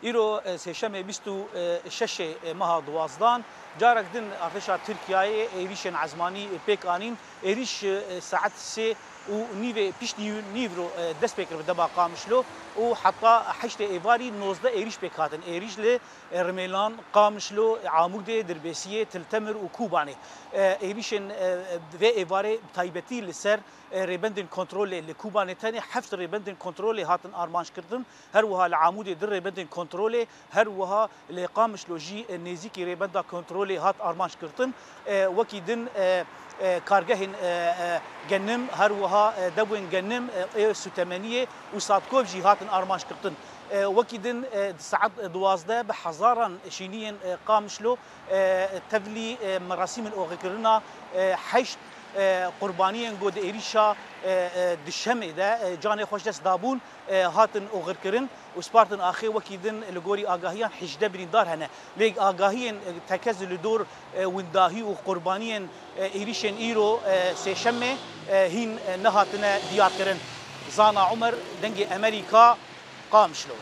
Îro sêşemê 26ê meha duwazdan carek din artêşa Tirkiyeyê êrîşên ezmanî pêk anîn. Êrîş saet sê û nîvê piştî nîvro dest pê kir bi dema Qamişlo û heta heştê êvarî 19 êrîş pêk hatin. Êrîş li Rimêlan, Qamişlo, Amûdê, Dirbêsiyê, Til Temir û Kobanê. Êrîşên vê êvarê bi taybetî li ser rêbendên kontrolê li Kobanê tenê heft rêbendên kontrolê hatin armançkirin. Her wiha li Amûdê du rêbendên kontrolê, her wiha li Qamişlo jî nêzîkî rêbenda kontrolê hat armançkirtin. Wekî din kargehên genim, her wiha dewên genim ê sûtemeniyê û satkov jî hatin armançkirtin. Wekî din di saet 12 bi hezaran şîniyên Qamişlo tevlî merasîmên oxirkirina heşt qurbaniyên ku di êrîşa duşemê de canê xwe ji dest dabûn hatin oxirkirin û spartin axê wekî din li gorî agahiyan 18 birîndar hene. Lê agahiyên tekez li dor windahî û qurbaniyên êrîşên îro sêşemê hîn nehatine diyarkirin. Zana Umer, Dengê Amerîka, Qamişlo.